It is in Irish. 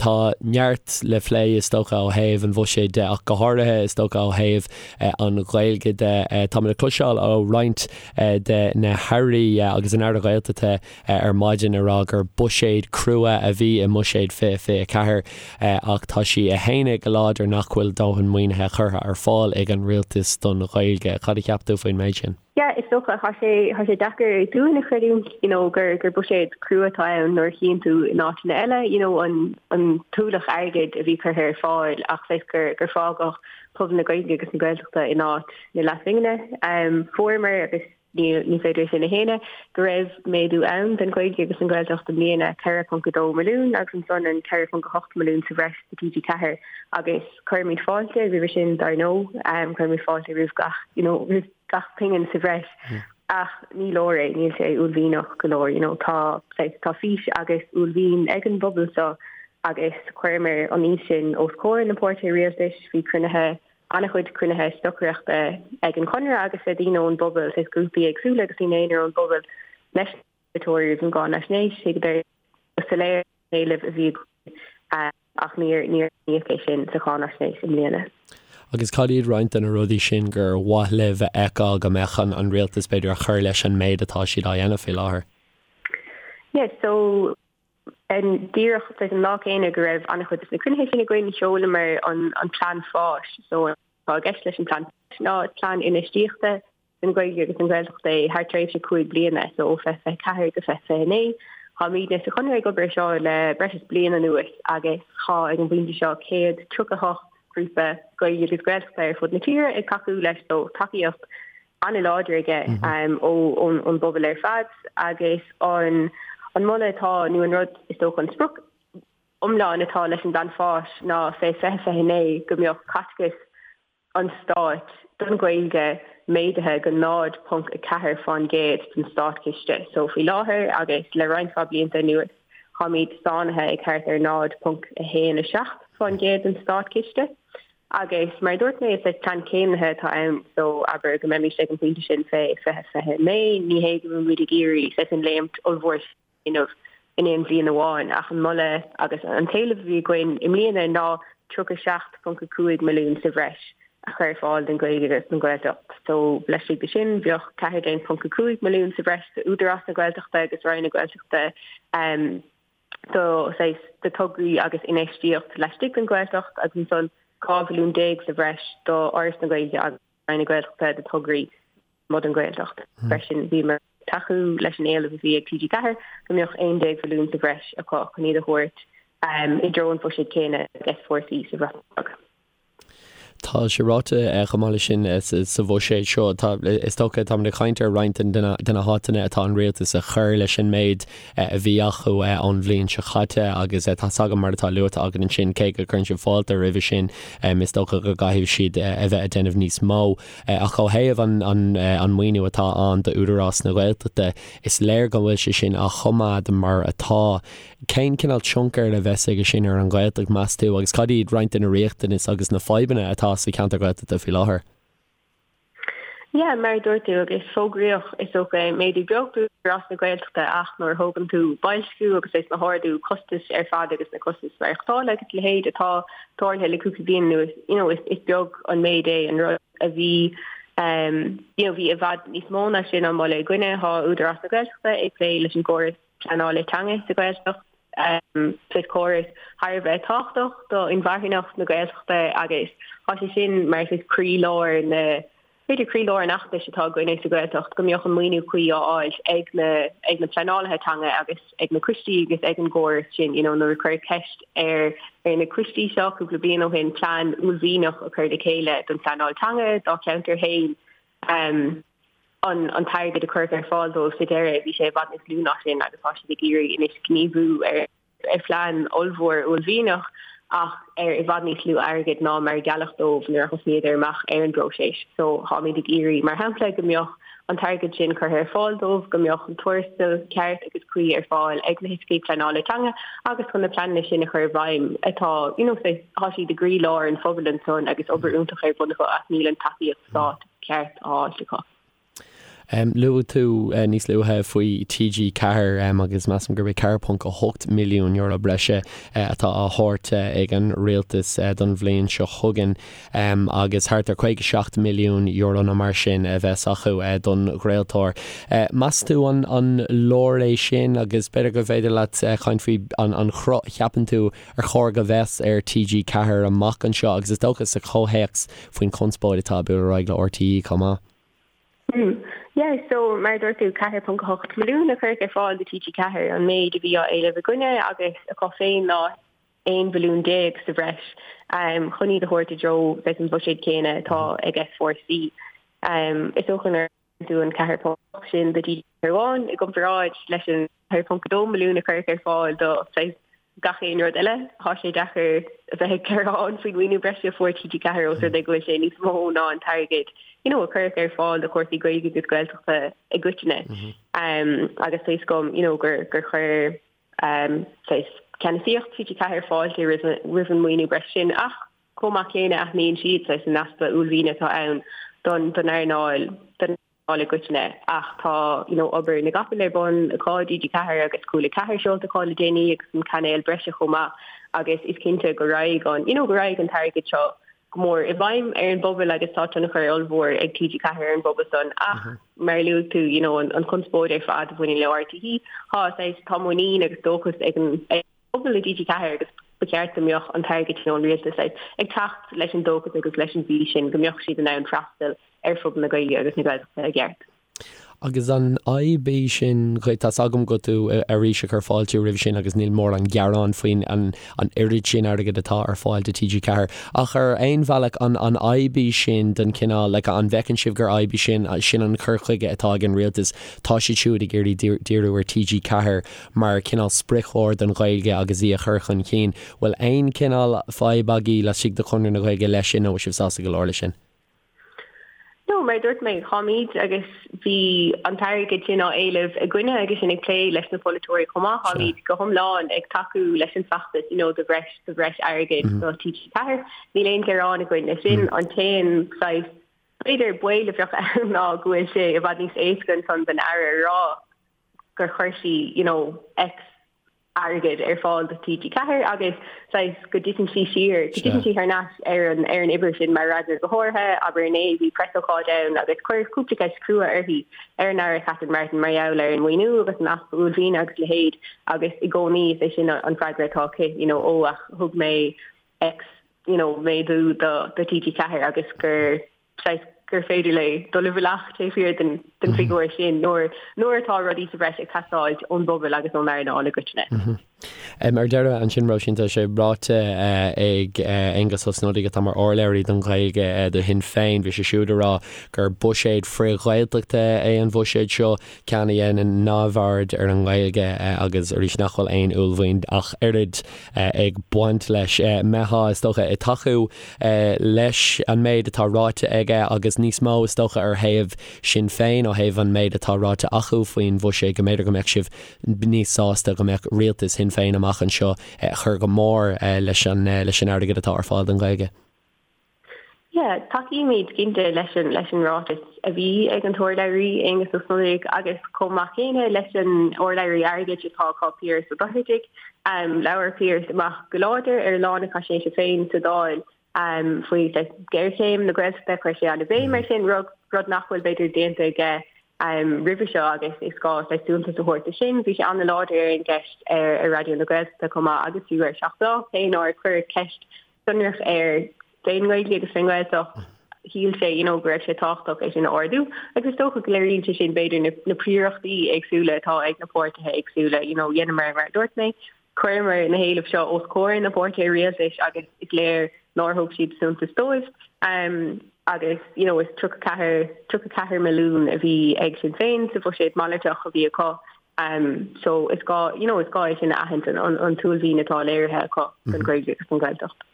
Tá neart le phlé is dócha ó thaobh an bhuiséid de ach go háirithe is dócha ó thaobh an Ghaeilge de. Táimid ag cloisteáil ó roinnt de na hairí agus an Aire Gaeltachta ar maidin ag rá gur buiséad crua a bhí i mBuiséad 2024 ach tá sí ag séanadh go láidir nach bhfuil dóthain maoinithe curtha ar fáil ag an rialtas don Ghaeilge. Cad a cheap tú faoin méid sin? Yeah, is dócha, tá sé, tá sé deacair dúinn a chreidiúint, you know, gur, gur buiséad crua atá ann nuair a chíonn tú in áiteanna eile, you know, an, an t-ualach airgid a bhí curtha ar fáil ach saghas gur, gur fágadh pobal na Gaeilge agus na Gaeltachta in áit na leathphingine. Um, fuaireamar agus ní, ní féidir sin a shéanadh, go raibh méadú ann don Ghaeilge agus an Ghaeltacht i mbliana, 4.2 milliún agus ansan an 4.8 milliún sa bhreis do TG4 agus cuirimid fáilte roimhe sin dar ndóigh, um, cuirimid fáilte roimh gach, you know, roimh gach pingin sa bhreis ach ní leor é, níl sé uaillmhianach go leor, you know, tá, tá fís agus uaillmhian ag an bpobal seo agus chuireamar an fhís sin os comhair na páirtithe rialtais, bhí cruinnithe, an-chuid cruinnithe stocaireachta ag an Chonradh agus le daoine ón bpobal, saghas grúpaí éagsúla agus daoine aonair ón bpobal leis na polaiteoirí roimh an gcáinaisnéis, thuigeadar go soiléir an t-éileamh a bhí againn. Ach níor aithníodh é sin sa cháinaisnéis i mbliana. Agus cad iad roinnt de na rudaí sin gur mhaith libh a fheiceáil go mbeadh an rialtas, b'fhéidir, a chur leis an méid atá siad á dhéanamh faoi láthair? Yeah, so díreach an lá céanna go raibh an-chuid de na cruinnithe sin againn, sheolamar an plean fáis. So atá i gceist leis an plean fáis ná plean infheistíochta don Ghaeilge agus don Ghaeltacht é thar tréimhse 5 bliana, so ó 2024 go 2029. Táimidne sa Chonradh ag obair ar seo le breis is bliain anuas agus tá ag an bpointe seo 138 grúpa Gaeilge agus Gaeltachta ar fud na tíre ag tacú leis so tacaíocht an-láidir aige ón bpobal ar fad agus an an moladh atá nó an rud is dócha an sprioc iomlán atá leis an bplean fáis ná fé 2029 go mbeadh caiteachas an Stáit don Ghaeilge méadaithe go 0.4% den státchiste. So faoi láthair agus le roinnt mhaith blianta anuas táimid sáinnithe ag thart ar 0.17% den státchiste. Agus mar a dúirt mé is plean céimnithe atá ann so abair go mbeimis ag an bpointe sin fé 2029 ní hé go bhfuilimid ag iarraidh saghas an léimt ollmhór dhéanamh in aon bhliain amháin ach an moladh agus an t-éileamh a bhí againn i mbliana ná 37.5 milliún sa bhreis a chur ar fáil don Ghaeilge agus don Ghaeltacht. So laistigh de sin bheadh 14.5 milliún sa bhreis d'Údarás na Gaeltachta agus Roinn na Gaeltachta do saghas do tograí agus infheistíocht laistigh den Ghaeltacht agus ansan 12 mhilliún sa bhreis do Fhoras na Gaeilge agus Roinn na Gaeltachta do tograí lasmuigh den Ghaeltacht. Freisin bhíomar ag tacú leis an éileamh a bhí ag TG4 go mbeadh 11 mhilliún sa bhreis acu chun iad a thabhairt i dtreo an bhuiséid céanna ag S4C sa Bhreatain Bheag. Tá sé ráite chomh maith leis sin sa bhuiséad seo, tá, is dócha, táimid ag caint ar roinnt de na háiteanna atá an rialtas a chur leis an méid a bhí acu ón bhliain seo caite agus tá 's agam mar atá luaite agat ansin, cé go gcuireann sibh fáilte roimhe sin, is dócha go gcaithfidh siad a bheith ag déanamh níos mó. Ach ó thaobh an maoiniú atá ann d'Údarás na Gaeltachta, is léir go bhfuil sé sin á choimeád mar atá. Cén cineál tionchair a bheas aige sin ar an Ghaeltacht, meas tú, agus cad iad roinnt de na riachtanais agus na fadhbanna atá sa cheantar Gaeltachta faoi láthair? Yeah, mar a dúirt tú, agus fógraíodh, is dócha, méadú beag d'Údarás na Gaeltachta ach nuair a thógann tú boilsciú agus leis na hardú costais ar fad agus na costais maireachtála agus a leithéid atá tarlaithe le cúpla bliain anuas, you know, is is beag an méid é an rud a bhí um, you know, bhí i bhfad níos mó ná sin á mholadh againne. Tá Údarás na Gaeltachta ag plé leis an gcóras pleanála teanga sa Ghaeltacht, um, saghas córas thar a bheith tábhachtach do inmharthanacht na Gaeltachta agus tá sé sin mar saghas croílár na b'fhéidir croílár an fheachtais atá againne sa Ghaeltacht go mbeadh an maoiniú cuí á fháil ag na ag na pleanálaithe teanga agus ag na coistí agus ag an gcóras sin you know nuair a cuireadh ceist ar ar na coistí seo cúpla bliain ó shin plean uaillmhianach a chur le chéile don phleanáil teanga dá cheantar féin um, an an t-airgead a cuireadh ar fáil dóibh sa deireadh bhí sé i bhfad níos lú ná sin agus tá siad ag iarraidh anois gníomhú ar ar phlean ollmhór uaillmhianach ach ar i bhfad níos lú airgid ná mar a gealladh dóibh nuair a thosnaíodar amach ar an bpróiseas. So táimid ag iarraidh, mar shampla, go mbeadh an t-airgead sin curtha ar fáil dóibh, go mbeadh an tuarastal ceart agus cuí ar fáil ag na hoifigigh pleanála teanga agus chun na pleananna sin a chur i bhfeidhm atá, you know, tá siad i gcroílár an phobail ansan agus obair iontach ar bun acu ach níl an tacaíocht stáit ceart á fháilt acu. Luaigh tú níos luaithe faoi TG4 agus measaim gurb é €4.8 milliún breise atá á thabhairt ag an rialtas don bhliain seo chugainn agus thart ar €57 milliún nó mar sin a bheas acu don chraoltóir. Meas tú an leor é sin agus b'fhéidir go bhféidir leat caint faoi an chruth a cheapann tú ar chóir go bheas ar TG4 amach anseo agus is dócha sa chomhthéacs faoin chonspóid atá ag bualadh ar aghaidh le RTÉ chomh maith. Hmm. Yeah, so mar a dúirt tú, 4.8 milliún a cuireadh ar fáil do TG4, an méid a bhí á éileamh againne agus acu féin ná 11 mhilliún sa bhreis um, chun iad a thabhairt i dtreo saghas an bhuiséid céanna atá ag S4C. Um, is dócha nuair a tú an 4.8 sin do TG4 amháin i gcomparáid leis an 4.2 milliún a cuireadh ar fáil do saghas gach aon rud eile. Tá sé deacair a bheith ag gearán faoin mhaoiniú breise a fuair TG4 os rud é go bhfuil sé níos mó ná an t-airgead you know, a cuireadh ar fáil do chúrsaí Gaeilge agus Gaeltachta i gcoitinne. Mm -hmm. um, agus tá a fhios agam you know, gur, gur chuir um, saghas ceannasaíocht TG4 fáilte roimh, roimh an maoiniú breise sin ach chomh maith céanna aithníonn siad saghas an easpa uaillmhiana atá ann don, don earnáil don earnáil i gcoitinne ach tá you know obair na gcapall ar bun acu TG4 agus Cúla 4 seolta acu le déanaí agus an cainéal breise chomh maith agus is cinnte go raghaidh an you know go raghaidh an t-airgead seo go mór i bhfeidhm ar an bpobal agus tá tionchar ollmhór ag TG4 ar an bpobal san ach mar a luaigh tú you know an an chonspóid ar fad a bhaineann le RTÉ tá saghas tá muinín agus dóchas ag an ag pobal i dTG4 agus ba cheart go mbeadh an t-airgead sin ón rialtas ag teacht leis an dóchas agus leis an bhfís sin go mbeadh siad in ann freastal ar phobal na Gaeilge agus na Gaeltachta i gceart. Agus an fhadhb í sin dhuit? Tá's agam go tú arís ag cur fáilte roimhe sin agus níl mórán gearán faoin an oiread sin airgid atá ar fáil do TG4 ach ar aon bhealach an an fhadhb í sin den chineál like an bhfeiceann sibh gur fhadhb í sin sin an cur chuige atá ag an rialtas tá siad siúd ag iarraidh díriú ar TG4 mar chineál spriocchóir don Ghaeilge agus í a chur chun cinn. Bhfuil aon chineál fadhb agaibh laistigh de Chonradh na Gaeilge leis sin nó bhfuil sibh sásta go leor leis sin? No, mar a dúirt mé, táimid agus bhí an t-airgead sin á éileamh againne agus sinn ag plé leis na polaiteoirí chomh maith, táimid go hiomlán ag tacú leis an bhfeachtas you know do bhreis do bhreis airgid do TG4. Níl aon ghearán againn leis sin. An t-aon saghas b'fhéidir baol a bheadh ann ná go bhfuil sé i bhfad níos éasca ansan don Aire a rá gur chuir sí you know X airgead ar fáil do TG4 agus saghas go dtiteann sí siar, go dtiteann sí thar n-ais ar an ar an uimhir sin mar fhreagra go háirithe, abair inné bhí preasócáid ann agus cuireadh cúpla ceist crua uirthi ar an Aire Catherine Martin mar gheall ar an maoiniú agus an easpa uaillmhiana agus a leithéid agus i gcónaí is é sin an freagra atá aici you know ó ach thug mé X you know méadú do do TG4 agus gur saghas gur féidir léi dul i bhfolach taobh thiar den den figiúr sin nuair nuair atá rudaí sa bhreis ag teastáilt ón bpobal agus ón earnáil i gcoitinne. Ar deireadh ansin, Róisín, tá sé ráite ag Aengus Ó Snodaigh, atá mar urlabhraí don Ghaeilge do Shinn Féin, bhí sé siúd ag rá gur buiséad frith-Ghaeltachta é an bhuiséad seo, ceann a dhéanann neamhaird ar an nGaeilge agus arís nach bhfuil aon uaillmhian ach oiread ag baint leis. Mbeifeá, is dócha, ag tacú leis an méid atá ráite aige agus níos mó, is dócha, ar thaobh Sinn Féin ó thaobh an méid atá ráite acu faoin bhuiséad, go mb'fhéidir go mbeadh sibh níos sásta go mbeadh rialtas Shinn Féin amach anseo ag cur go mór leis an leis an airgead atá ar fáil don Ghaeilge. Yeah, tacaímid cinnte leis an leis an ráiteas a bhí ag an t-urlabhraí, Aengus Ó Snodaigh, agus chomh maith céanna leis an urlabhraí airgid atá acu, Piaras Ó Dochartaigh. Labhair Piaras amach go láidir ar lá na Faisnéise féin sa Dáil faoi ghéarchéim na Gaeltachta, chuir sé an-bhéim air sin, rud rud nach bhfuil b'fhéidir déanta aige roimhe seo agus is gá saghas suntas a thabhairt do sin. Bhí sé an-láidir ar an gceist ar Raidió na Gaeltachta chomh maith agus fiú ar 7 Lá, cé nár cuireadh ceist sonrach air fén nGaeilge agus fén nGaeltacht, shíl sé you know go raibh sé tábhachtach é sin a ardú agus is dócha go léiríonn sé sin b'fhéidir na, na príorachtaí éagsúla atá ag na páirtithe éagsúla, you know dheineamar mar a dúirt mé, chuireamar na héilimh seo os comhair na bpáirtithe rialtais agus is léir nár thug siad suntas dóibh. Um, agus you know, is 34, 34 milliún a bhí ag Sinn Féin sa bhuiséad malartach a bhí acu Um, so is gá, you know, is gá é sin a aithint an, an, an t-uaillmhian atá léirithe acu don Ghaeilge agus don Ghaeltacht.